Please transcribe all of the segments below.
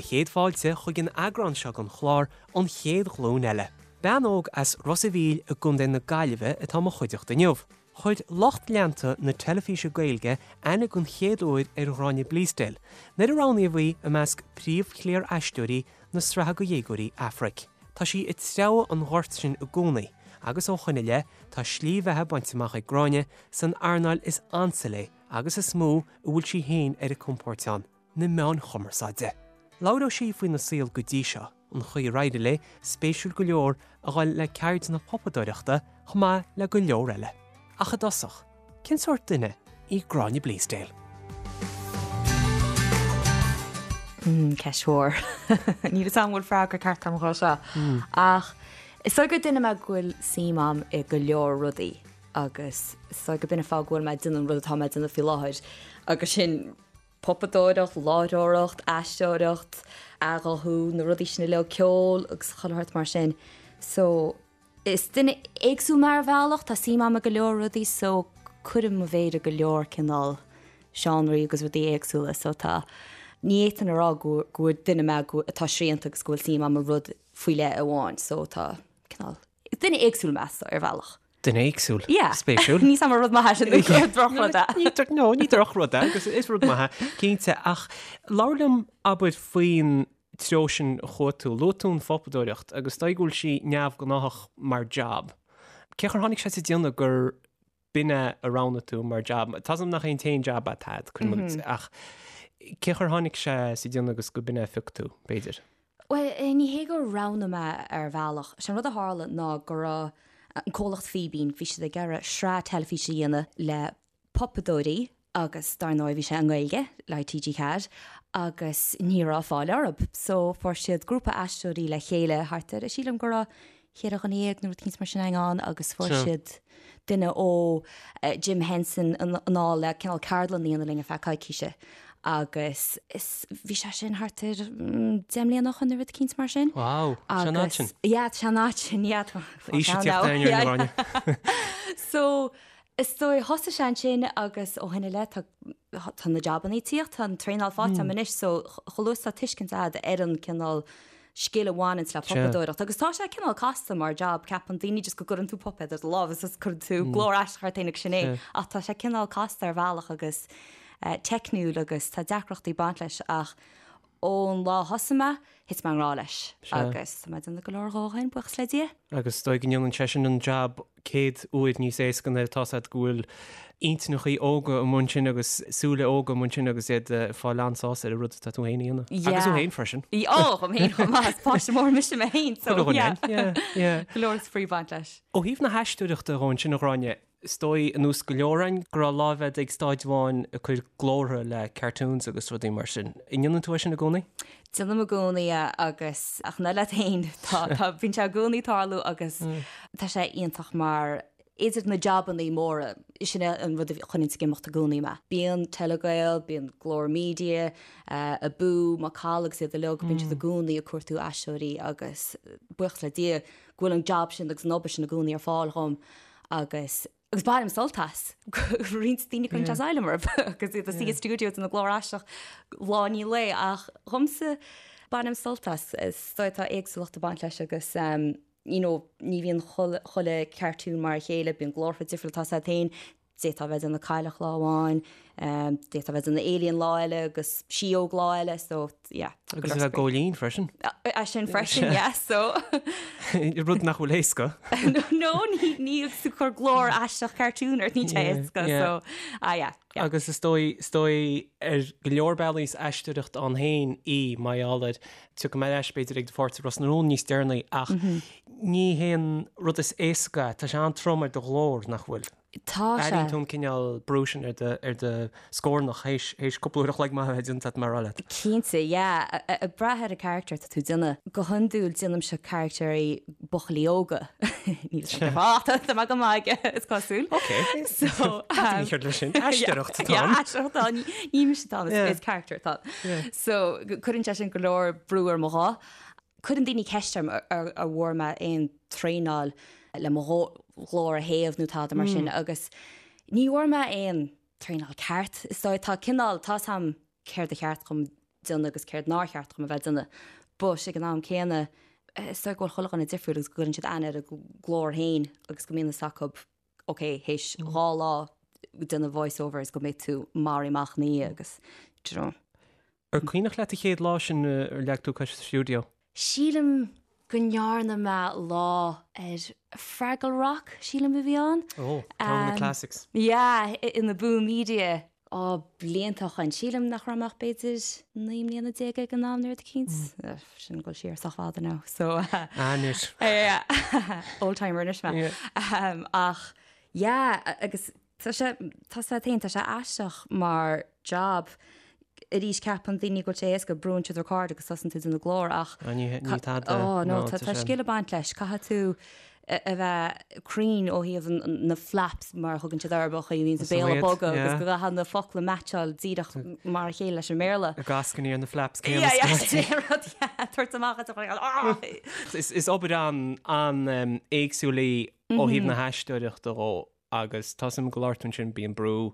Do chéad fáilte chuig an eagrán seo den chlár An Chéad Ghlúin Eile. Bean óg as Ros a' Mhíl i gContae na Gaillimhe atá i mo chuideachta inniu. Chuir lucht leanta na teilifíse Gaeilge aithne den chéad uair ar Ghráinne Bleasdale nuair a roghnaíodh í i measc príomhchliar aisteoirí na sraithe do dhéagóirí Aifric. Tá sí ag treabhadh an ghoirt sin i gcónaí agus ó shoin i leith tá slí bheatha bainte amach ag Gráinne san earnáil is ansa léi agus is mó a bhfuil sí féin ar a compord ann, na meáin chumarsáide. Labhróidh sí faoina saol go dtí seo, an chaoi ar éirigh léi, spéisiúil go leor, a dhul le ceird na pupadóireachta chomh maith le go leor eile. Ach i dtosach, cén sórt duine í Gráinne Bleasdale? Ceist mhór. Níl 'fhios a'm an bhfuil freagra ceart a'm dhó seo. Ach is dóigh gur duine mé go bhfuil suim a'm i go leor rudaí agus is dóigh go b'in an fáth go bhfuil mé ag déanamh an rud atá mé ag déanamh faoi láthair agus sin pupadóireacht, láithreoireacht, aisteoireacht, athghuthú, na rudaí sin uilig, ceol agus chuile shórt mar sin. So, is duine éagsúil mé ar bhealach, tá suim a'm i go leor rudaí so cuirim mo mhéar i go leor cineál seánraí agus rudaí éagsúla so tá, ní fhéadfainn a rá go go duine mé go atá srianta agus go bhfuil suim a'm i rud faoi leith amháin so tá cineál, is duine éagsúil mé so ar bhealach. Duine éagsúil. Yeah. Spéisiúil. Níl 'fhios a'm an rud maith é sin nó drochrud é. Ní dro- no, ní drochrud é agus is rud maith é, cinnte. Ach labhair liom, abair, faoin treo sin a chuaigh tú. Luaigh tú an phupadóireacht agus is dóigh go bhfuil sí neamhghnáthach mar jab. Cén chaoi ar tháinig sé sa déanamh gur b'in é a roghnaigh tú mar jab? Tá 's agam nach é an t-aon jab atá agat, cuirim i gcás, ach cén chaoi ar tháinig sé sa déanamh agus go b'in é a phioc tú, b'fhéidir? Bhuel, ní hé gur roghnaigh mé ar bhealach. Sé an rud a tharla ná go raibh an comhlacht Fíbín, bhí siad ag iarraidh sraith teilifíse a dhéanamh le pupadóirí agus dar ndóigh bhí sé i nGaeilge le TG4 agus ní raibh fáil orthu. So fuair siad grúpa aisteoirí le chéile thart ar, sílim go raibh cheithre dhuine dhéag nó rud éicint mar sin ann agus fuair siad duine ó Jim Henson anall le cineál ceardlann a dhéanamh linn ar feadh coicíse agus is bhí sé sin thart ar 10 mbliana ó shoin nó rud éicint mar sin. Wow, tá sé an fhad sin. Yeah, tá sé an fhad sin, yeah. Aois ag tíocht ar an Ghráinne. So, is dóigh, thosaigh sé ansin agus ó shin i leith tá tá na jabannaí ag tíocht, tá an traenáil faighte agam anois so chomh luath is atá tuiscint agat ar an cineál scil a bhaineanns le pupadóireacht agus tá sé cineál casta mar jab, ceapann daoine just go gcuireann tú puipéad ar do lámh agus cuireann tú glór aisteach ort féin agus sin é ach tá sé cineál casta ar bhealach agus teicniúil agus tá deacrachtaí ag baint leis ach ón lá a thosaigh mé, thit mé i ngrá leis agus tá mé ag déanamh go leor dhó ó shin, buíochas le Dia. Agus is dóigh go ndéanann sé sin an jab 100 uair níos éasca nuair atá 's agat go bhfuil intinneachaí óga amuigh ansin agus súile óga amuigh ansin agus iad ag fáil an-sásamh ar an rud atá tú féin a dhéanamh. Agus thú féin freisin. Ó, dhom féin chomh maith, is páiste mór mise mé féin, so yeah. Yeah, yeah. Go leor spraoi ag baint leis. Ó thaobh na haisteoireachta dhó ansin, a Ghráinne, Is dóigh, ar nós go leor againn, go raibh láimh agat ag staid amháin ag cur glórtha le cartoons agus rudaí mar sin. An ndéanann tú é sin i gcónaí? Déanaim i gcónaí é agus, ach ná leat féin, tá, tá, bíonn sé i gcónaí ag tarlú agus tá sé iontach mar idir na jabannaí móra, sin é an rud a choinníonns ag imeacht i gcónaí mé. Bíonn Telegael, bíonn Glór Media, Abú, Macalla agus iad uilig, bíonn siad i gcónaí ag cuartú aisteoirí agus buíochas le Dia go bhfuil an jab sin agus an obair sin i gcónaí ar fáil dhom. agus agus bainim sult as. Roinnt daoine cuireann sé asylum orthu agus iad ina suí i stiúideo ag déanamh glór aisteach lá i ndiaidh lae ach dhomsa bainim sult as. Is dóigh tá éagsúlacht ag baint leis agus you know ní bhíonn chuile cartoon mar a chéile, bíonn glórtha difriúla tá 's agat féin, D'fhéadfá a bheith ag déanamh cailleach lá amháin, d'fhéadfá a bheith ag déanamh alien lá eile agus síóg lá eile, so yeah. Agus a bheith góilín freisin. É sin freisin, yeah, so. Rud nach bhfuil éasca. No, ní agus tú ag cur glór aisteach cartoon ort, níl sé éasca, so, ah yeah. Agus is dóigh, is dóigh ar go leor bealaí is aisteoireacht ann féin í, mar gheall air, tiocfaidh mé ar ais b'fhéidir ag do pháirt i Ros na Rún níos deireanaí ach ní haon rud is éasca é, tá sé an-trom ar do ghlór, nach bhfuil? Tá sé. Airíonn tú an cineál brú sin ar do, ar do scornach théis, théis cúpla uair a chloig maith a bheith déanta agat mar a rá leat. Cinnte, yeah. Ag brath ar an character atá tú ag déanamh. Go hiondúil déanaimse caractéirí buachaillí óga. Níl sé go fáth, tá mé go maith aige, is cosúil. Ok. So, um, Ní cheart leis sin. Aisteoireacht atá ann. Yeah, aisteoireacht atá ann. Ní mise atá ann, is character atá ann. So, cuireann sé sin go leor brú ar mo ghuth. Cuireann daoine ceist orm ar bhfuair mé aon traenáil le mo ghlór a théamh nó tada mar sin agus ní bhfuair mé aon traenáil ceart. Is dóigh tá cineál, tá 's a'm céard a cheart dhom. déanamh agus céard nár cheart dhom a bheith ag déanamh. But ag an am céanna, is dóigh go bhfuil chuile dhuine difriúil agus go gcuireann siad aithne ar a nglór féin agus go mbíonn fhios acu, ok, théis 2 lá ag déanamh voice overs go mbeidh tú maraithe amach ina dhiaidh agus, do you know. Ar cuimhneach leat an chéad lá sin ar leag tú cois sa stiúideo? Sílim go ndearna mé lá ar Fraggle Rock, sílim a bhí ann. Ó, ceann de na classics. Yeah, in Abú Media. Á, blianta ó shoin. Sílim nach raibh mé ach b'fhéidir 19 mbliana ag an am nó rud eicínt. Sin ag dul siar sách fada now, so. Anois. Yeah, old timer anois mé. Ach, yeah, agus Tá sé, tá sé féin, tá sé aisteach mar job. Arís ceapann daoine go bhfuil sé éasca, brúann siad record agus tosaíonn tú ag déanamh glór ach Ah, ní, ní tada. Oh, no, tá, tá scil ag baint leis. Caithfidh tú a bheith cruinn ó thaobh na flaps mar a thugann siad orthu, an chaoi a mbíonn an béal ag bogadh agus go gcaithfidh na focla meaitseáil díreach mar a chéile leis an mBéarla. Ag ascainí ar na flaps céanna. Yeah, yeah, sin é an rud, yeah, tabhairt amach as an ah! Is, is obair an, an-éagsúil í ó thaobh na haisteoireachta dhó. Agus tá 'fhios a'm go labhair tú ansin, bíonn brú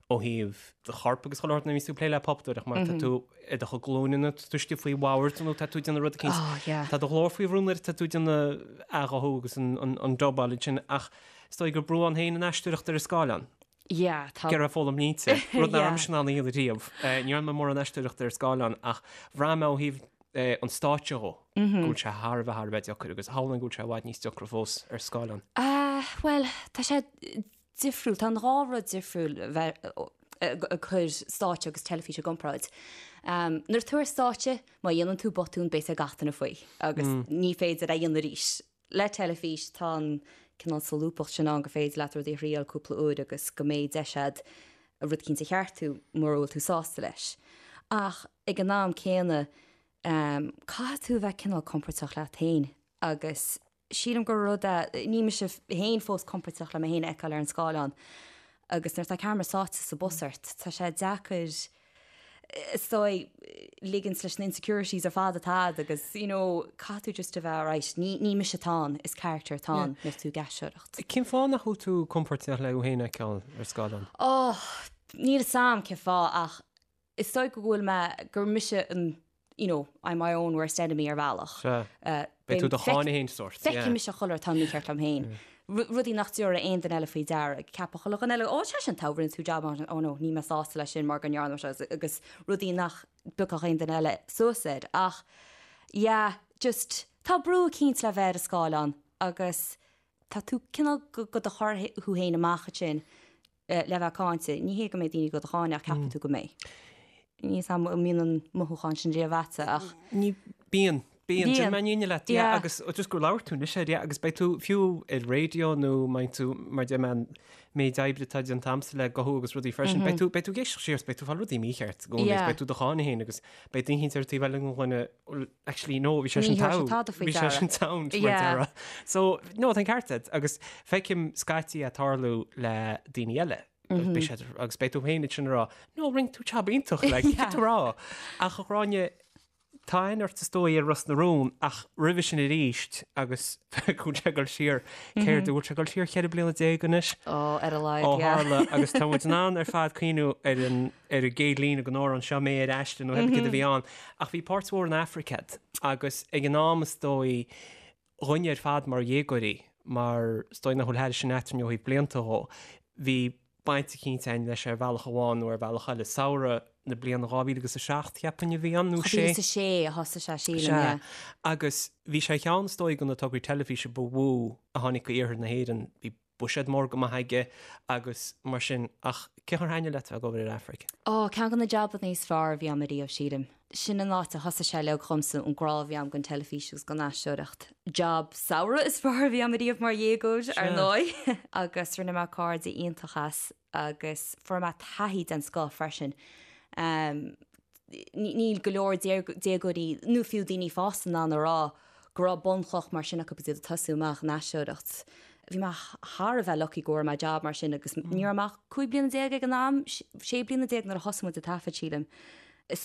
ó thaobh do choirp agus chuile shórt nuair a bhíonns tú ag plé le puipéadóireacht mar tá tú ar do chuid glúine nó tá tú istigh faoi bhord nó tá tú ag déanamh rud eicínt. Oh, yeah. Tá do ghlór faoi bhrú nuair atá tú ag déanamh athghuthú agus an, an, an dubáil ansin ach is dóigh gur brú ann féin an aisteoireacht ar an scáileán. Yeah, tá. Ag iarraidh foghlaim línte, rud nach raibh mise in ann a dhéanamh riamh. Ní dhearna mé mórán aisteoireachta ar scáileán ach bhraith mé ó thaobh an stáitse dhó, go bhfuil sé thar a bheith, thar a bheith deacair agus shamhlóinn go bhfuil sé i bhfad níos deacra fós ar scáileán. Bhuel, tá sé difriúil, tá an dhá rud difriúil bheith ag cur stáitse agus teilifís i gcomparáid. Nuair atá tú ar stáitse, má dhéanann tú botún, beidh a fhios ag gach duine faoi agus ní féidir é a dhéanamh arís. Le teilifís, tá an cineál solúbthacht sin ann gur féidir leat rudaí a thriail cúpla uair agus go mbeidh deis agat rud eicínt a cheartú mura bhfuil tú sásta leis. Ach ag an am céanna, caithfidh tú a bheith cineál compordach leat féin agus sílim gur rud é, níl mise féin fós compordach le mé féin a fheiceáil ar an scáileán agus nuair atá ceamara sáite sa bpus ort, tá sé deacair is dóigh, ligint leis na insecurities ar fad atá agat agus, you know, caithfidh tú just a bheith right, ní, ní mise atá ann, is character atá ann nuair atá tú ag aisteoireacht. Cén fáth nach bhfuil tú compordach le thú féin a fheiceáil ar scáileán? Oh, níl 'fhios a'm cén fáth ach is dóigh go bhfuil mé, gur mise an, you know, I'm my own worst enemy ar bhealach. Sea. Beidh tú do cháineadh féin sórt. Feicfidh mise chuile rud atá mícheart liom féin. Rudaí nach dtabharfaidh aon duine eile faoi deara. Ceapfaidh chuile dhuine eile, ó, sé sin togha, rinne tú jab maith, oh no, níl mé sásta leis sin mar go ndearna mé seo agus rudaí nach bpiocfadh aon duine eile suas air. Ach, yeah, just, tá brú eicínt le bheith ar an scáileán agus tá tú cineál go do chur thú féin amach ansin. le bheith cáinte. Ní hé go mbeidh daoine go do cháineadh ach ceapfaidh tú go mbeidh. Níl 'fhios a'm an mbíonn an mothúchán sin riamh a'dsa ach. Ní, bíonn. Bíonn. Déanfaidh mé an fhírinne leat. Yeah. Agus just gur labhair tú anois air, yeah, agus beidh tú fiú ar raidió nó mbeidh tú, mar deir mé, an méid oibre atá déanta a'msa le guthú agus rudaí freisin, beidh tú, beidh tú ag éisteacht siar, beidh tú ag fáil rudaí mícheart i gcónaí, agus beidh tú do cháineadh féin agus beidh duine eicínt ar an taobh eile den ghloine, well, actually no, bhí sé sin togha, bhí sé sin sound mar déarfá. So, no, tá an ceart agat agus feicim scaití é ag tarlú le daoine eile. Beidh siad, agus beidh tú féin ansin ag rá, no, rinne tú jab iontach, like, cad tú rá. Ach a Ghráinne, tá aithne ort is dóigh ar Ros na Rún ach roimhe sin arís agus go bhfuil sé ag dul siar, céard, bhfuil sé ag dul siar 14 bliana anois? Ó, ar a laghad, yeah. Ó tharla agus tá muid in ann ar fad cuimhniú ar an ar an gcéad líne den amhrán seo mé ar aiste nó cibé céard a bhí ann. Ach bhí páirt mhór in Aifric agat agus ag an am is dóigh dhúinne ar fad mar dhéagóirí, mar is dóigh nach bhfuil thairis sin eadrainn ó thaobh blianta dhó, bhí baint eicínt againn leis ar bhealach amháin nó ar bhealach eile. Samhradh na bliana 2007 cheapfainn a bhí ann nó sé. 2006 a thosaigh sé sílim, yeah. Sea. Agus bhí sé ar cheann is dóigh de na tograí teilifíse ba mhó a tháinig go iarthar na hÉireann. Bhí buiséad mór go maith aige agus mar sin ach cén chaoi ar thaitnigh leat a bheith ag obair ar Aifric? Ó, ceann de na jabanna is fearr a bhí a'm ariamh, sílim. Sin an áit a thosaigh sé uilig dhomsa, an grá a bhí a'm don teilifís agus don aisteoireacht. Job samhraidh is fearr a bhí a'm ariamh mar dhéagóir, ar ndóigh. Agus rinne mé cairde iontach as agus fuair mé taithí den scoth freisin. Níl go leor déagóirí nó fiú daoine fásta in ann a rá go raibh bunchloch mar sin acu agus iad ag tosú amach in aisteoireacht. Bhí mé thar a bheith lucky go bhfuair mé job mar sin agus ní raibh mé ach 15 bliana ag an am, 16 bliana nuair a thosaigh muid ag taifead, sílim. Is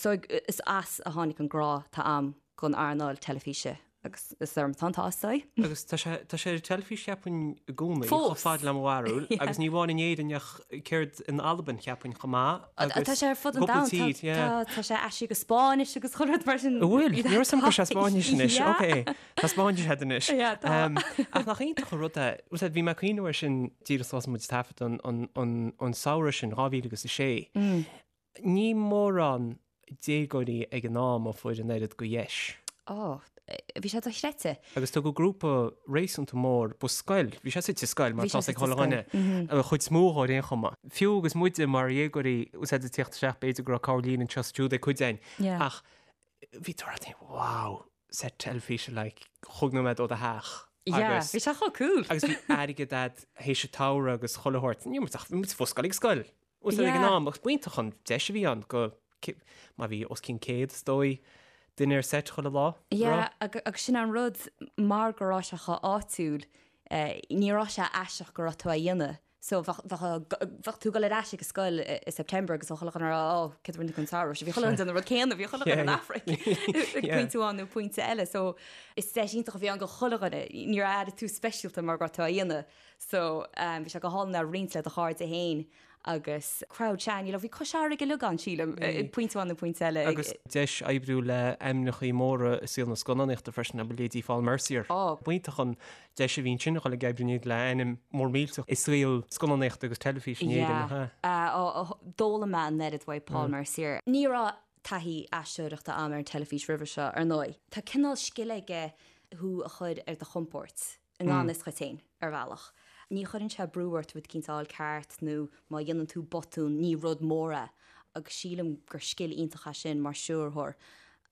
as a tháinig an grá atá a'm don earnáil teilifíse. Agus is orm atá an t-ádh is dóigh. Agus tá sé, tá sé ar an teilifís cheapfainn i gcónaí, chomh fada le mo bharúil, agus ní amháin in Éirinn ach céard in Albain cheapfainn chomh maith agus Tá sé ar fud an domhain, tá, yeah. tá, tá sé aistrithe go Spáinnis agus chuile rud mar sin. An bhfuil? Ní raibh a fhios agam go raibh sé Spáinnis anois, ok. Tá Spáinnis agat anois. Yeah, tá. Ach nach iontach an rud é, bhfuil a fhios agat, bhí mé ag cuimhneamh air sin díreach thosaigh muid ag taifead an, an, an, an samhradh sin, 2006. Ní mórán déagóirí ag an am a fuair an oiread de dheis. Ó, bhí sé dochreidte. Agus tugadh grúpa réasúnta mór, ba scoil, bhí sé suite i scoil mar tá a fhios ag chuile dhuine, an chuid is mó dhó ar aon chuma. Fiú agus muide mar dhéagóirí, bhfuil a fhios agat ag tíocht isteach, b'fhéidir go raibh corrlíne anseo is ansiúd ag cuid againn, ach bhí tú ag rá, wow, set teilifíse like chúig nóiméad ó do theach. Yeah, bhí sé chomh cool. Agus bhí airgead a'd théis an tsamhraidh agus chuile shórt. Ní raibh muid ach, bhí muid fós ag dul ag scoil. Bhfuil a fhios agat ag an am, agus b'iontach an deis a bhí ann go, má bhí os cionn 100 is dóigh, duine ar seit chuile lá. Yeah, agus sin an rud, mar go raibh sé chomh áitiúil, ní raibh sé aisteach go raibh tú á dhéanamh. So bheadh, bheadh, bheadh tú ag dul ar ais ag an scoil i September agus bheadh chuile dhuine ag rá, oh, céard a rinne tú an samhradh seo? Bhí chuile dhuine ag déanamh an rud céanna, bhí chuile dhuine in Aifric ag pointe amháin nó pointe eile. So is deis iontach a bhí ann do chuile dhuine, níor airigh tú speisialta mar go raibh tú á dhéanamh. So bhí sé go hálainn a roinnt le do chairde féin agus crowd sea, you know, bhí Cois Fharraige uilig ann sílim, ag pointe amháin nó pointe eile. Agus deis oibriú le ainmneachaí móra i saol na scannánaíochta freisin, abair leithéidí Paul Mercier. Ó. B'iontach an deis a bhí ansin a dhul ag oibriú le ainm mór millteach i saol scannánaíochta agus teilifíse in Éirinn, nach ea? Yeah. Ó, d'fhoghlaim mé an oiread uaidh Paul Mercier. Ní raibh taithí aisteoireachta a'm ar an teilifís roimhe seo, ar ndóigh. Tá cineál scil aige thú a chur ar do chompord. i ngan fhios dhuit féin, ar bhealach. Ní chuireann sé brú ort rud eicínt a fháil ceart nó má dhéanann tú botún ní rud mór é agus sílim gur scil iontach é sin mar stiúrthóir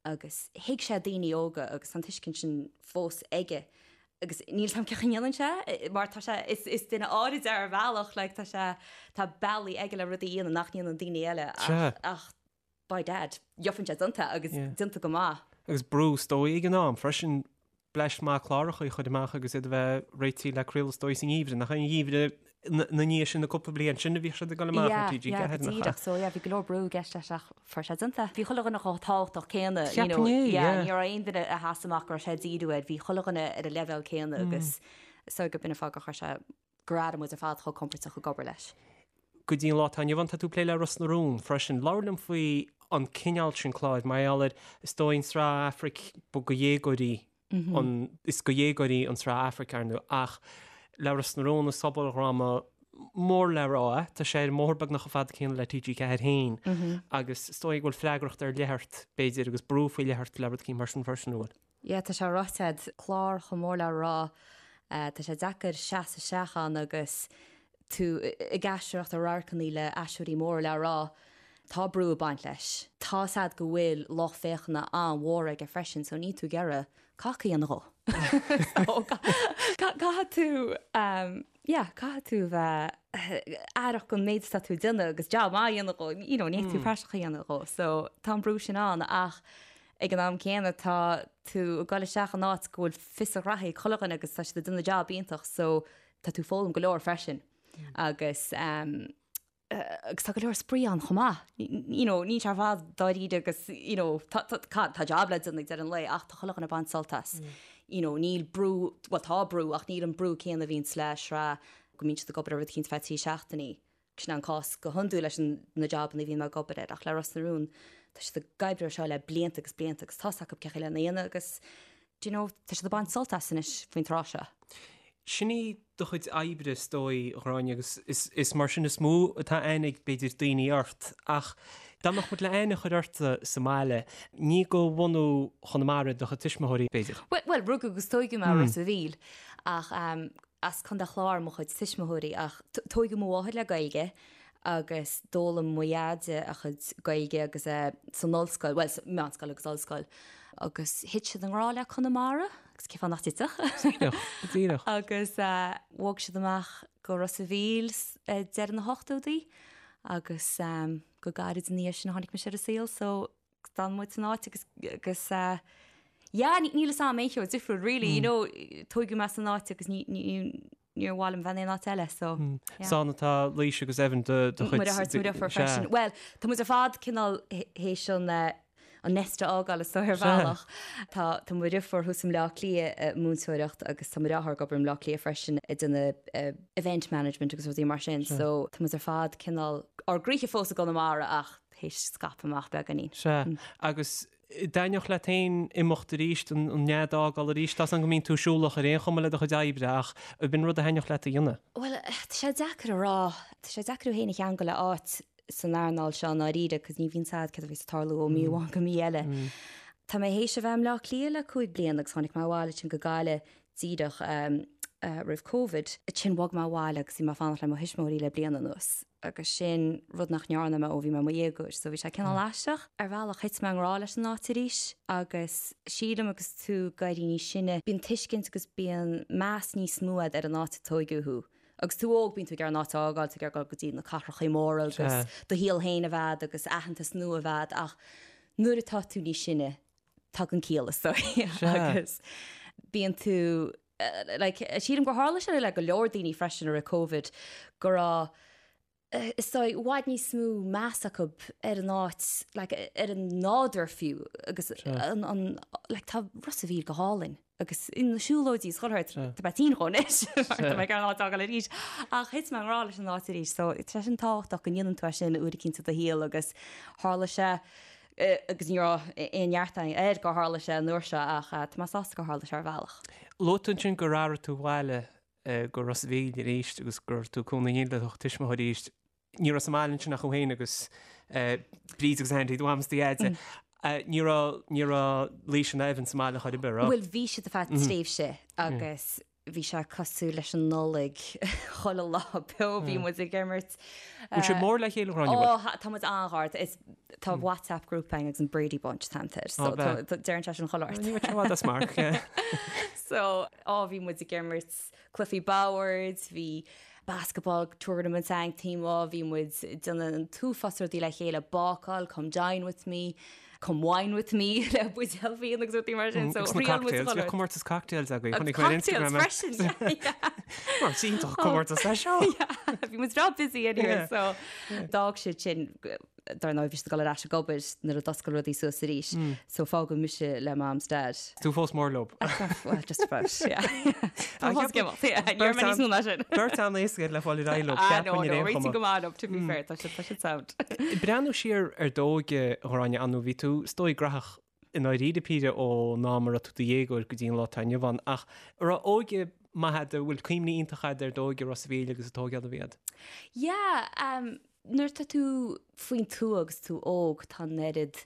agus thuig sé daoine óga agus tá an tuiscint sin fós aige agus níl 's a'm cén chaoi a ndéanann sé mar tá sé, is, is duine áirid é ar bhealach like tá sé, tá bealaí aige le rudaí a dhéanamh nach ndéanann daoine eile ach, ach by dad, gheobhann sé déanta agus déanta go maith. Agus brú is dóigh ag an am freisin bleaist mhaith cláracha a chur amach agus iad a bheith réitithe le craoladh is dóigh sa ngeimhreadh, nach é an geimhreadh na ndiaidh sin na cúpla bliain sin a bhíodh siad ag dul amach ar TG4, nach ea? Yeah, go díreach. So yeah, bhí go leor brú i gceist leis ach fuair sé déanta. Bhí chuile dhuine chomh tábhachtach céanna, you know, Cheapfainn é, yeah. ní raibh aon duine a sheas amach go raibh sé ag díriú air, bhí chuile dhuine ar an leibhéal céanna agus so gurb in an fáth gur chuir sé gur airigh muid ar fad chomh compordach ag obair leis. Go dtí an lá atá inniu ann, tá tú ag plé le Ros na Rún freisin. Labhair liom faoi an cineál sin cláir, mar gheall ar, is dóigh, an tsraith Aifric, ba do dhéagóirí an, is do dhéagóirí an tsraith Aifric, ar ndóigh, ach le Ros na Rún, is sobaldhráma mór le rá é, tá sé ar an mbóthar beagnach chomh fada céanna le TG4 féin agus is dóigh go bhfuil freagracht ar leith ort, b'fhéidir, agus brú faoi leith ort le rud eicínt mar sin freisin, an bhfuil? Yeah, tá sé ráite a'd, clár chomh mór le rá, tá sé deacair seasamh isteach ann agus tú ag aisteoireacht i radharcannaí le aisteoirí móra le rá. Tá brú ag baint leis. Tá's a'd go bhfuil lucht féachana an-mhór aige freisin so níl tú ag iarraidh cac a dhéanamh dhó. So caithfidh tú, yeah, caithfidh tú bheith aireach don méid atá tú ag déanamh agus job maith a dhéanamh dhó, you know, ní thig tú praiseach a dhéanamh dhó. So tá an brú sin ann ach Ag an am céanna tá tú ag dul isteach in áit go bhfuil fios a ghraithí ag chuile dhuine agus tá siad ag déanamh jab iontach so tá tú ag foghlaim go leor freisin agus agus tá go leor spraoi ann chomh maith. You know, níl sé ar fad dáiríre agus you know, tá, tá, tá, tá jab le déanamh ag deireadh an lae ach tá chuile dhuine ag baint sult as. You know, níl brú, bhuel tá brú ach níl an brú céanna a bhíonns le sraith go mbíonn siad ag obair ar rud eicínt feadh 3 seachtainí. Sin an cás go hiondúil leis na jabanna a bhíonn mé ag obair air ach le Ros na Rún tá siad ag oibriú ar seo le blianta agus blianta agus tá's acu cén chaoi lena dhéanamh agus do you know tá siad ag baint sult as anois faoin tráth seo. Sin í do chuid oibre is dóigh, a Ghráinne, agus is mar sin is mó atá aithne ag b'fhéidir daoine ort ach dá mbeadh muid le aithne a chur ort sa mbaile, ní de bhunú Chonamara do chuid tuismitheoirí b'fhéidir? Bhuel, rugadh agus tóigeadh mé i Ros a' Mhíl ach As Contae an Chláir mo chuid tuismitheoirí ach tóigeadh mo mháthair le Gaeilge agus d'fhoghlaim mo dheaide a chuid Gaeilge agus é san ollscoil, bhuel, sa meánscoil agus ollscoil agus thit siad i ngrá le Conamara agus cén fáth nach dtitfeadh? Díreach, díreach. Agus bhog siad amach go Ros a' Mhíl ag deireadh na hochtóidí agus go gairid ina dhiaidh sin a tháinig mise ar an saol so D'fhan muid san áit agus agus yeah níl fhios a'm aon cheo difriúil really you know tóigeadh mé san áit agus ní ní níor mhaith liom bheith in aon áit eile so yeah. Is ann atá Laoise agus Evan do do chuid. Mo dheartháir is mo dheirfiúr freisin. Bhuel tá muid ar fad cineál théis an eh. an nest a fhágáil is dóigh ar bhealach. Tá tá mo dheirfiúr thuas i mBleá Cliath ag múinteoireacht agus tá mo dheartháir ag obair i mBleá Cliath freisin ag déanamh event management agus rudaí mar sin so tá muid ar fad cineál ár gcroíthe fós i gConamara ach théis scaipeadh amach beagáinín. Sea, agus dtaitneodh leat féin imeacht arís, an nead a fhágáil arís? Tá 's agam go mbíonn tú siúlach ar aon chuma le do chuid oibre ach ab in rud a thaitneodh leat a dhéanamh? Bhuel, tá sé deacair a rá. Tá sé deacair thú féin a cheangal le áit san earnáil seo i ndáiríre cos ní bhíonn 's a'd céard a bheas ag tarlú ó mí amháin go mí eile. Tá mé théis a bheith i mBleá Cliath le 5 bliana agus tháinig mé abhaile ansin go Gaillimh díreach roimh Covid. Ansin bhog mé abhaile agus bhí mé ag fanacht le mo thuismitheoirí le bliain anuas agus sin rud nach ndearna mé ó bhí mé i mo dhéagóir so bhí sé cineál aisteach. Ar bhealach thit mé i ngrá leis an áit arís agus sílim agus tú ag éirí níos sine bíonn tuiscint agus bíonn meas níos mó a'd ar an áit a tóigeadh thú. Agus tú óg bíonn tú ag iarraidh an áit a fhágáil, tú ag iarraidh dul go dtí na cathrachaí móra agus do shaol féin a bheith a'd agus aitheantas nua a bheith a'd ach nuair atá tú níos sine tagann ciall is dóigh agus bíonn tú like sílim gur tharla sé le go leor daoine freisin i rith Covid go raibh is dóigh, i bhfad níos mó meas acu ar an áit, like, ar an nádúr fiú agus an, an, like, tá Ros a' Mhíl go hálainn agus na siúlóidí is chuile shórt, tá mé tinn dhó anois mar tá mé ag iarraidh an áit a fhágáil arís ach thit mé i ngrá leis an áit arís so tá sé sin tábhachtach go ndéanann tú é sin uair eicínt i do shaol agus tharla sé agus ní raibh aon neart air gur tharla sé an uair seo ach tá mé sásta gur tharla sé ar bhealach. Luaigh tú ansin gur athraigh tú abhaile go Ros a' Mhíl arís agus go raibh tú ag cónaí le do thuismitheoirí arís. Ní raibh sa mbaile ansin ach thú féin agus Bríd agus Andy, do mham is do dhaid. Ní raibh, ní raibh Laoise ná Evan sa mbaile chor ar bith, raibh? Bhuel, bhí siad ar feadh tréimhse agus bhí sé cosúil leis an Nollaig chuile lá beo, bhí muid ag imirt. Bhfuil sibh mór le chéile, a Ghráinne, bhfuil? Ó, tá muid an-ghar. Is tá WhatsApp group againn agus an Brady Bunch an t-ainm air. So deireann sé sin chuile shórt. Ní raibh sé i bhfad as marc. So, á bhí muid ag imirt cluichí boird, bhí basketball tournaments againn taobh amuigh, bhí muid ag déanamh an t-uafás rudaí le chéile, bácáil, come dine with me, come wine with me le buidéal fíona agus rudaí mar sin. So, Agus na thriail muid cocktails, chuile bhí rud. comórtas cocktails agaibh, Agus chonaic mé ar cocktails Instagram é. freisin, yeah. Mar is iontach comórtas é seo. Yeah, bhí muid breá busy anyway, Yeah. so d'fhág siad sin Dar ndóigh, bhí siad ag dul ar ais ag obair nuair a d'oscail rudaí suas arís, so fágadh mise le mam 's dad. Tú fós mór leo. Well, just about, yeah. Tá fós ag imeacht, yeah. Ní raibh mé níos mó ná sin. Beirt an-éasca le fáil ar aghaidh leo, Ah, ceapaim no, ar no, aon réitigh chuma. go maith leo, to be fair, tá siad, tá siad sound. Breathnú siar ar d'óige, a Ghráinne, ar ndóigh, bhí tú, is dóigh, graitheach i ndáiríre píre ón am a raibh tú i do dhéagóir go dtí an lá atá inniu ann, ach an raibh óige maith agat, an bhfuil cuimhní iontacha agat ar d'óige i Ros a' Mhíl agus an tógáil a bhí agat? Yeah, um, Nuair atá tú faoin tuath agus tú óg tá an oiread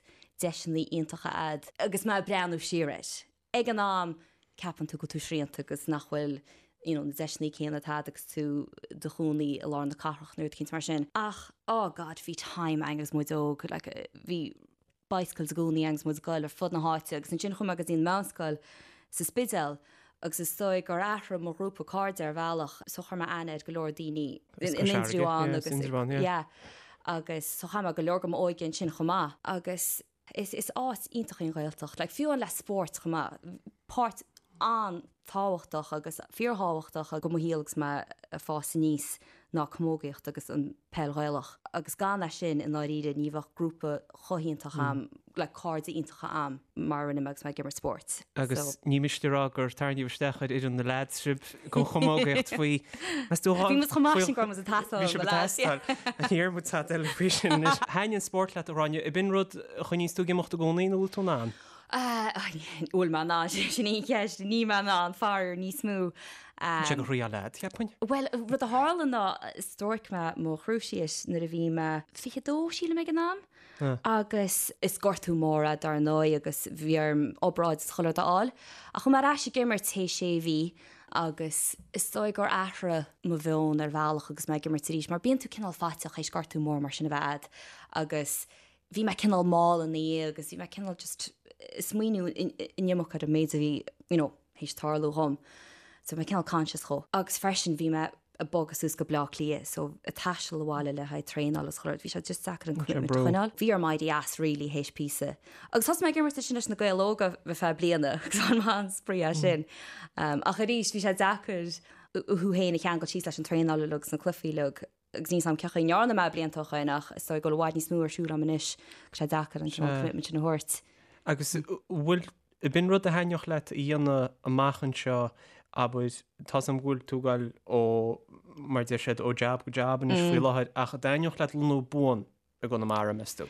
deiseanna iontacha a'd agus mé ag breathnú siar air. Ag an am ceapann tú go bhfuil tú srianta agus nach bhfuil you know na deiseanna céanna atá a'd agus tú i do chónaí i lár na cathrach nó rud eicínt mar sin. Ach oh God bhí time a'inn agus muid óg like bhí bicycles i gcónaí agus muid ag goil ar fud na háite agus ansin chuaigh mé go dtí an meánscoil sa Spidéal agus is dóigh gur athraigh mo ghrúpa cairde ar bhealach so chuir mé aithne ar go leor daoine in Indreabhán agus yeah agus so chaith mé go leor de m'óige ansin chomh maith agus is is áit iontach í an Ghaeltacht like fiú amháin le spórt chomh maith páirt an-tábhachtach agus fíorthábhachtach de mo shaol agus mé ag fás aníos ná camógaíocht agus an peil Ghaelach agus gan é sin i ndáiríre ní bheadh grúpa chomh hiontach a'm, like cairde iontacha a'm mar a rinne mé agus mé ag imirt spóirt. Agus ní miste a rá gur tarraingíodh isteach ar fhoireann na leaids sibh don chamógaíocht faoi, meas tú Bhí muid chomh maith sin go raibh muid ag tástáil Bhí sibh ag tástáil. Ní raibh muid tada eile faoi sin anois. Thaitnigh an spórt leat a Ghráinne, ab in rud a choinníonns tú ag imeacht i gcónaí nó bhfuil tú in ann? Bhfuil mé in ann, sin í an cheist, níl mé in ann, faraor níos mó. Sé go thriail leat, cheapfainn. Bhuel, rud a tharla ná stróic mé mo chruciate nuair a bhí mé 22, sílim ag an am, agus is gortú mór é dar ndóigh agus bhí orm obráid is chuile rud a fháil. Ach chuaigh mé ar ais ag imirt théis sé mhí agus is dóigh gur athraigh mo mheon ar bhealach agus mé ag imirt arís mar bíonn tú cineál faiteach théis gortú mór mar sin a bheith a'd agus bhí mé cineál mall ina dhiaidh agus bhí mé cineál just ag smaoineamh an iomarca ar an méid a bhí, you know, théis tarlú dhom. So bhí mé cineál conscious dhó. Agus freisin bhí mé ag bogadh suas go Bleá Cliath so ag taisteal abhaile le haghaidh traenáil agus chuile rud, bhí sé just deacair an commitment a choinneáil. Bhí orm éirí as really théis píosa. Agus thosaigh mé ag imirt ansin leis na Gaeil Óga ar feadh bliana agus bhain mé an-spraoi as sin. Ach arís bhí sé deacair thú féin a cheangal síos leis an traenáil uilig agus na cluichí uilig. Agus níl 's a'm cén chaoi a ndearna mé blianta ó shoin ach is dóigh go bhfuil i bhfad níos mó ar siúl a'm anois agus sé deacair an cineál commitment sin a thabhairt. Agus bhfuil, b'in rud a thaitneodh leat a dhéanamh amach anseo, abair, tá's a'm go bhfuil tú ag goil ó, mar a deir siad, ó jab go jab anois faoi láthair, ach an dtaitneodh leat lonnú buan i gConamara, meas tú?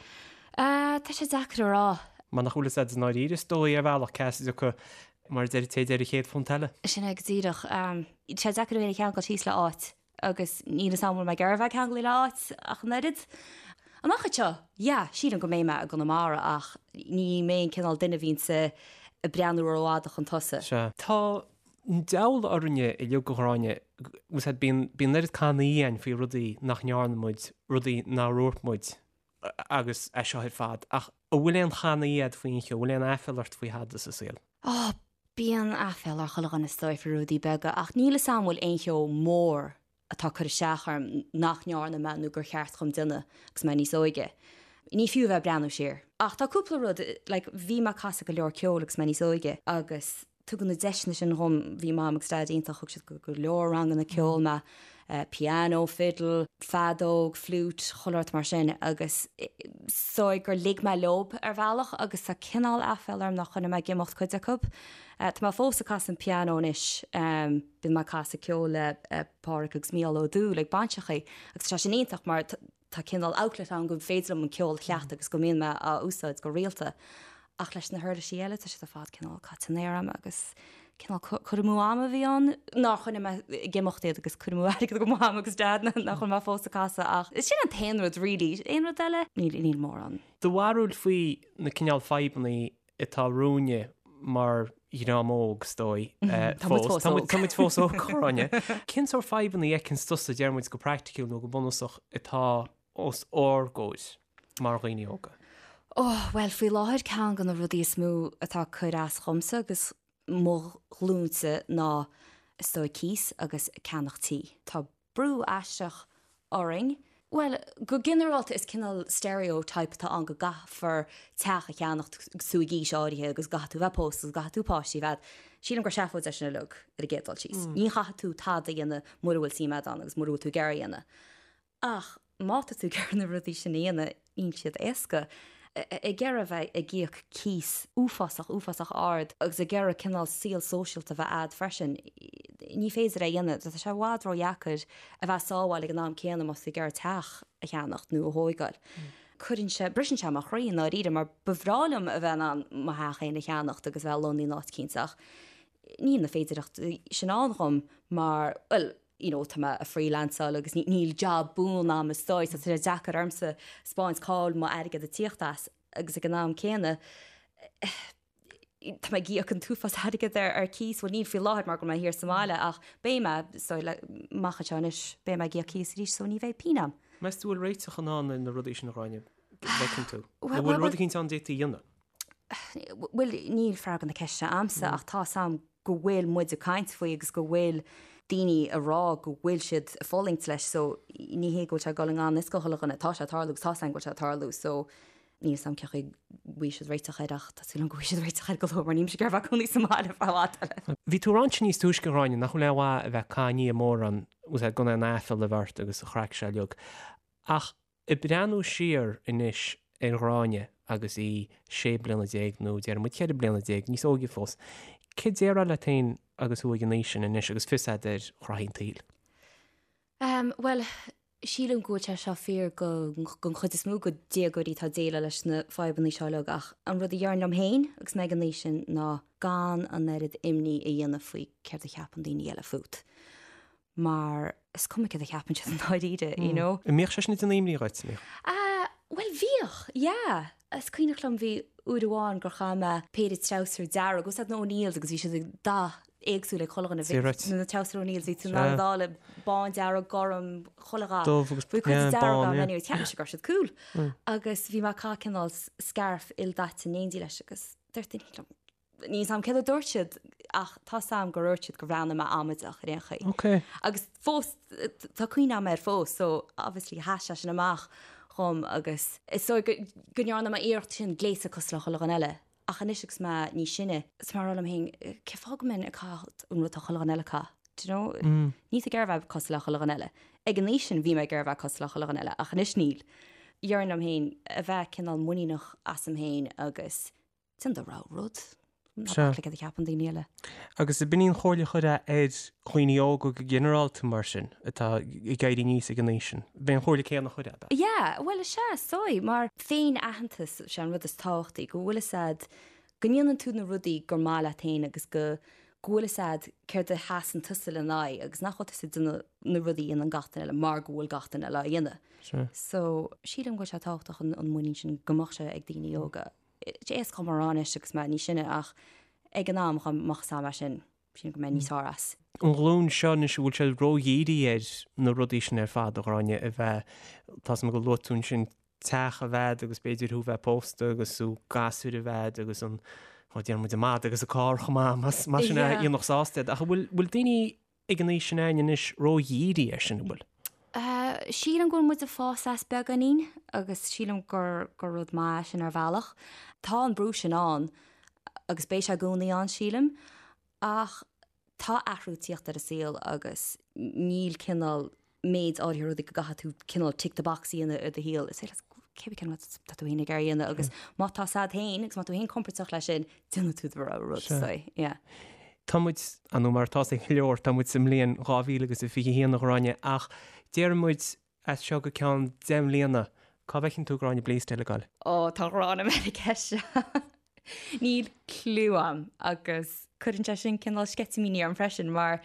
Tá sé deacair a rá. Mar nach bhfuil fhios a'd i ndáiríre is dóigh ar bhealach cá as a dtiocfaidh, mar a deir an té a deir an chéad phunt eile. Sin é go díreach. Tá sé deacair a bheith ceangailte síos le áit agus níl fhios a'm an bhfuil mé ag iarraidh a bheith ceangailte le áit ach an oiread. Amach anseo, yeah, sílim go mbeidh mé i gConamara ach ní mé an cineál duine a bhíonns ag breathnú rófhada chun tosaigh. Sea. Tá an diabhal orainne uilig, a Ghráinne, bhfuil fhios a'd, bíonn, bíonn oiread cannaí againn faoi rudaí nach ndearna muid, rudaí nár dhúirt muid agus é seo ar fad, ach an bhfuil aon channaí a'd faoi aon cheo, an bhfuil aon aiféala ort faoi thada sa saol? Ó, bíonn aiféala ar chuile dhuine is dóigh faoi rudaí beaga ach níl fhios a'm an bhfuil aon cheo mór atá ag cur isteach orm nach ndearna mé nó gur cheart dhom déanamh agus mé níos óige. Ní fiú a bheith ag breathnú siar. Ach tá cúpla rud, like bhí mé ag casadh go leor ceoil agus mé níos óige agus tugadh na deiseanna sin dhom, bhí Mam agus Daid iontach, thug siad go go leor ranganna ceoil mé, piano, fiddle, feadóg, flute, chuile shórt mar sin agus is dóigh gur lig mé leob ar bhealach agus tá cineál aiféala orm nár choinnigh mé ag imeacht cuid acu. Tá mé fós ag casadh an piano anois. Bíonn mé ag casadh ceoil le Páraic agus Mícheál Ó Dúill ag bainseachaí agus tá sé sin iontach mar tá cineál outlet ann go féidir liom an ceol a chleachtadh agus go mbíonn mé á úsáid go rialta. Ach leis na huirlisí eile tá siad ar fad cineál caite in aer a'm agus cineál cur amú ama a bhí ann nár choinnigh mé ag imeacht iad agus cur amú airgid do Mham agus Dad nach bhfuil mé fós ag casadh ach sin an t-aon rud really. Aon rud eile? Níl, níl mórán. Do bharúil faoi na cineál fadhbannaí atá romhainne mar dhream óg, is dóigh, fós. Tá muid fós óg. Tá muid fós óg, a Ghráinne. Cén sórt fadhbanna a fheiceanns tusa, deir muid go praiticiúil nó go bunúsach, atá os ár gcomhair mar dhaoine óga? Ó, bhuel, faoi láthair ceann de na rudaí is mó atá ag cur as dhomsa agus mo ghlúinse ná, is dóigh, cíos agus ceannach tí. Tá brú aisteach orainn. Bhuel, go ginearálta is cineál stereotype atá ann go gcaithfear teach a cheannacht agus tú ag aois áirithe agus go gcaithfidh tú bheith pósta agus go gcaithfidh tú páistí a bheith agat. Sílim gur seafóid é sin uilig ar an gcéad dul síos. Ní chaithfidh tú tada a dhéanamh mura bhfuil suim agat ann agus mura bhfuil tú ag iarraidh a dhéanamh. Ach má tá tú ag iarraidh na rudaí sin a dhéanamh, níl siad éasca. Ag iarraidh a bheith ag íoc cíos uafásach, uafásach ard agus ag iarraidh cineál saol sóisialta a bheith a'd freisin, ní féidir é a dhéanamh. Tá sé i bhfad ródheacair a bheith ag sábháil ag an am céanna más tú ag iarraidh teach a cheannacht nó a thóigeáil. Cuireann sé, briseann sé mo chroí i ndáiríre mar ba bhreá liom a bheith in ann mo theach féin a cheannacht agus a bheith lonnaithe in áit eicínt ach níl na féidireachtaí sin ann dhom mar, bhuel, you know, tá mé ag freelanceáil agus níl job buan a'm is dóigh, so tá sé deacair ormsa 'spáint cá bhfuil m'airgead ag tíocht as agus ag an am céanna tá mé ag íoc an t-uafás airgead ar ar cíos, bhuel níl faoi láthair mar go bhfuil mé thiar sa mbaile ach beidh mé, so le, amach anseo anois beidh mé ag íoc cíos arís so ní bheidh pingin a'm. Meas tú bhfuil réiteach in ann ar na rudaí sin a Ghráinne, bhfeiceann tú? Nó bhfuil rud eicínt ann d'fhéadfaí a dhéanamh? Bhuel, níl freagra na ceiste a'msa ach tá 'fhios a'm go bhfuil muid ag caint faoi agus go bhfuil daoine ag rá go bhfuil siad ag fulaingt leis so ní hé go bhfuil sé ag dul i ngan fhios do chuile dhuine, tá sé ag tarlú agus tá 'fhios a'm go bhfuil sé ag tarlú so níl 'fhios a'm cén chaoi a bhfaighidh siad réiteach air ach tá súil agam go bhfaighidh siad réiteach air go luath mar níl mise ag iarraidh a bheith ag cónaí sa mbaile ar feadh i bhfad eile. Bhí tú ag ráit níos túisce a Ghráinne nach bhfuil aon mhaith a bheith ag cáineadh mórán gan aon aiféala a bheith ort agus an chraic seo uilig ach Ag breathnú siar anois ar Ghráinne agus í 16 bliana nó déarfaidh muid 14 bliana, níos óige fós, céard a déarfá leat féin agus thú ag an aois sin anois agus fios agat ar ghraithí an tsaoil? Bhuel, sílim go bhfuil sé seo fíor don chuid is mó de dhéagóirí atá ag déileáil leis na fadhbanna seo uilig ach an rud a déarfainn liom féin agus mé ag an aois sin ná gan an oiread imní a dhéanamh faoi céard a cheapann daoine eile fút. mar is cuma céard a cheapann siad i ndáiríre, you know. An mbíodh sé sin ag déanamh imní dhuit, an mbíodh? Ah, bhuel bhíodh, yeah. Is cuimhneach liom bhí uair amháin gur chaith mé péire treabhsar dearg, bhfuil 'fhios a'd na O'Neills agus bhí siad ag dath éagsúil ag chuile dhuine. Bhí Right. na treabhsar O'Neills, bhí tú in ann iad a fháil bán, dearg, gorm, chuile dhath. Dubh agus Bhí cuid yeah, dearg bán, ann yeah. anyway, cheap mise go raibh siad cool. Agus bhí mé ag caitheamh cineál scarf ildaite in éindí leis agus dúirt duine liom, Níl 'fhios a'm céard a dúirt siad ach tá 'fhios a'm gur dhúirt siad gur bhreathnaigh mé amaideach ar aon chaoi. Ok. Agus fós, tá cuimhne a'm air fós so obviously sheas sé sin amach dhom agus is dóigh go, go ndearna mé iarracht sin gléasadh cosúil le chuile dhuine eile. Ach anois agus mé níos sine, is mé ag rá liom féin, cén fáth go mbeinn ag caitheamh an rud atá chuile dhuine eile ag caitheamh? Do you know? Níl tú ag iarraidh a bheith cosúil le chuile dhuine eile. Ag an aois sin bhí mé ag iarraidh a bheith cosúil le chuile dhuine eile ach anois níl. Déarfainn liom féin a bheith cineál muiníneach asam féin agus déan do rogha rud. Ná bac le céard a cheapann daoine eile. Agus ab in í an chomhairle a chuirfeá ar dhaoine óga go ginearálta mar sin, atá ag éirí aníos ag an aois sin? B'é an chomhairle céanna a chuirfeá, ab ea? Yeah, bhuel is ea, is dóigh, mar féin-aitheantas, sé an rud is tábhachtaí, go bhfuil fhios a'd, go ndéanann tú na rudaí gur maith leat féin agus go go bhfuil fhios a'd céard a sheasann tusa lena aghaidh agus nach bhfuil tusa ag déanamh na rudaí a dhéanann gach duine eile mar go bhfuil gach duine eile á dhéanamh. So, sílim go bhfuil sé tábhachtach an muinín sin go mbeadh sé ag daoine óga. Éasca dhom a rá anois agus mé níos sine ach ag an am dá mbeadh fhios a'm é sin, sílim go mbeinn níos fearr as. An ghlúin seo anois, an bhfuil sé ródhírithe ar na rudaí sin ar fad, a Ghráinne, a bheith, tá 's agam gur luaigh tú ansin teach a bheith a'd agus b'fhéidir thú bheith pósta agus tú gasúir a bheith a'd agus an, ó déarfaidh muid an madadh agus an carr chomh maith, más más sin a dhéanfadh sásta iad. Ach an bhfuil, bhfuil daoine ag an aois sin a'ainn anois ródhírithe air sin, an bhfuil? Sílim go bhfuil muid ag fás as beagáinín agus sílim gur gur rud maith é sin ar bhealach. Tá an brú sin ann agus beidh sé i gcónaí ann sílim ach tá athrú ag tíocht ar an saol agus níl cineál méid áirithe rudaí go gcaithfidh tú cineál tick the box a dhéanamh i do shaol. Is féidir leat cébí cén rud tá tú féin ag iarraidh a dhéanamh agus má tá 's a'd féin agus má tá tú féin compordach leis sin, déanfaidh tú do rogha rud. So, yeah. Tá muid, ar ndóigh mar atá 's ag go leor, tá muid sa mbliain 2021 a Ghráinne ach déarfaidh muid as seo go ceann 10 mbliana, cá bhfeiceann tú Gráinne Bleasdale ag goil? Ó, tá gráin orm ar an gceist seo. Níl cliú a'm agus cuireann sé sin cineál sceitimíní orm freisin mar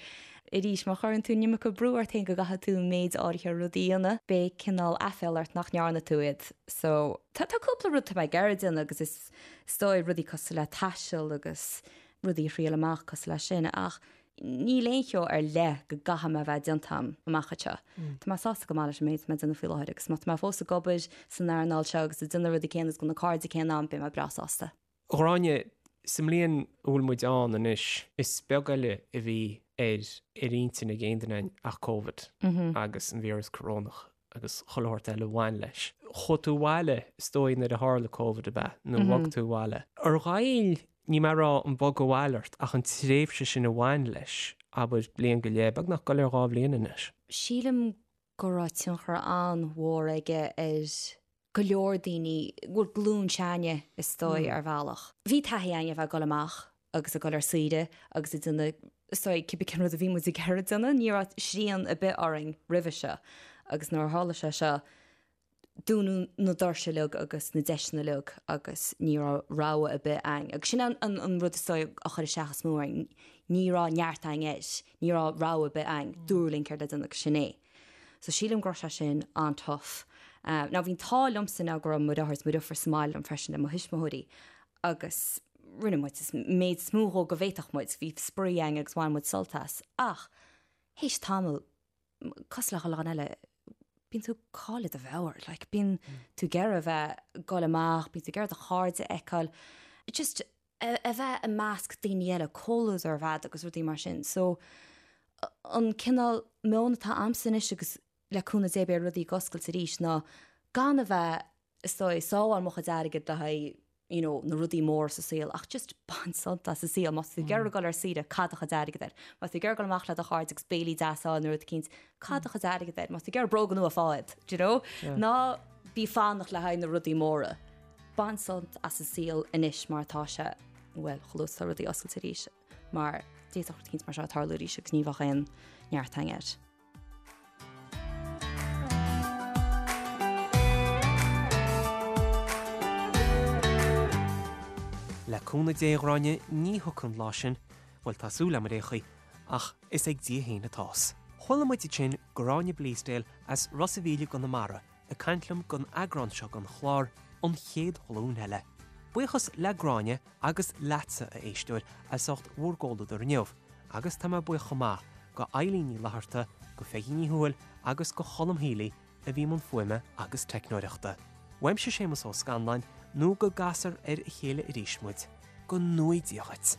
arís má chuireann tú an iomarca brú ort féin go gcaithfidh tú méid áirithe rudaí a dhéanamh, beidh cineál aiféala ort nach ndearna tú iad. So tá tá cúpla rud tá mé ag iarraidh déanamh agus is is dóigh rudaí cosúil le taisteal agus rudaí a thriail amach cosúil leis sin ach níl aon cheo ar leith go gcaithfidh mé a bheith déanta a'm amach anseo. Tá mé sásta go maith leis an méid atá mé ag déanamh faoi láthair agus má tá mé fós ag obair san earnáil seo agus ag déanamh na rudaí céanna agus go bhfuil na cairde céanna a'm, beidh mé breá sásta. A Ghráinne, sa mbliain a bhfuil muid ann anois, is beag eile a bhí ar ar intinn ag aon duine againn ach Covid agus an víreas corónach agus chuile shórt eile a bhain leis. Chuaigh tú abhaile, is dóigh, nuair a tharla Covid, ab ea? Nó bhog tú abhaile. Ar ghoill, níl mé ag rá an bogadh abhaile ort, ach an tréimhse sin a bhain leis, abair, bliain go leith, beagnach ag goil ar dhá bhliain anois. Sílim go raibh tionchar an-mhór aige ar go leor daoine, bhuel, glúin s'againne, is dóigh, ar bhealach. Bhí taithí againn a bheith ag dul amach agus ag dul ar saoire agus ag déanamh, is dóigh, cibé cén rud a bhí muid ag iarraidh déanamh. Ní raibh srian ar bith orainn roimhe seo agus nuair a tharla sé seo, dúnadh na doirse uilig agus na deiseanna uilig agus ní raibh rogha ar bith againn. Agus sin an rud is dóigh a chuir isteach is mó orainn, ní raibh neart againn air, ní raibh rogha ar bith againn, dúradh linn céard le déanamh agus sin é. So sílim go raibh sé sin an-tough. Now bhí an t-ádh liomsa now go raibh mo dheartháir is mo dheirfiúr sa mbaile liom freisin le mo thuismitheoirí agus rinne muid an méid is mó dhó go bhféadfadh muid, bhí spraoi againn agus bhain muid sult as. Ach théis tamaill, cosúil le chuile dhuine eile, bíonn tú ag cailleadh do mheabhair, like bíonn tú ag iarraidh a bheith ag dul amach, bíonn tú ag iarraidh do chairde a fheiceáil, just a bheith i measc daoine eile, comhluadar a bheith a'd agus rudaí mar sin. So an cineál meon atá a'msa anois agus le cúnamh Dé beidh rudaí ag oscailt arís ná gan a bheith, is dóigh, ag sábháil mo chuid airgid le haghaidh you know, na rudaí móra sa saol ach just bain sult as an saol. Má tá tú ag iarraidh dul ar saoire, caith do chuid airgid air. Má tá tú ag iarraidh dul amach le do chairde agus béilí deas a fháil nó rud eicínt, caith do chuid airgid air. Má tá tú ag iarraidh bróga nua, faigh iad, do you know? Ná bí ag fanacht le haghaidh na rudaí móra. Bain sult as an saol anois mar atá sé, bhuel, chomh luath is atá rudaí oscailte arís, mar d'fhéadfadh rud eicínt mar seo tarlú arís agus ní bheadh aon neart againn air. Le cúnamh Dé, a Ghráinne, ní thiocfaidh an lá sin, bhuel, tá súil agam ar aon chaoi, ach is ag Dia féin atá's. Chuala muid ansin Gráinne Bleasdale as Ros a' Mhíl i gConamara, ag caint liom don eagrán seo den chlár, An Chéad Ghlúin Eile. Buíochas le Gráinne agus leatsa, a éisteoir, as ucht bhur gcomhluadar inniu, agus tá mé buíoch chomh maith go Eilín Ní Fhlatharta, go Pheigí Ní Thuathail agus go Cholm Healy a bhí i mbun fuaime agus teicneoireachta. Uaimse Séamus Ó Scanláin, nó go gcasfar ar a chéile arís muid, go ngnóthaí Dia dhuit!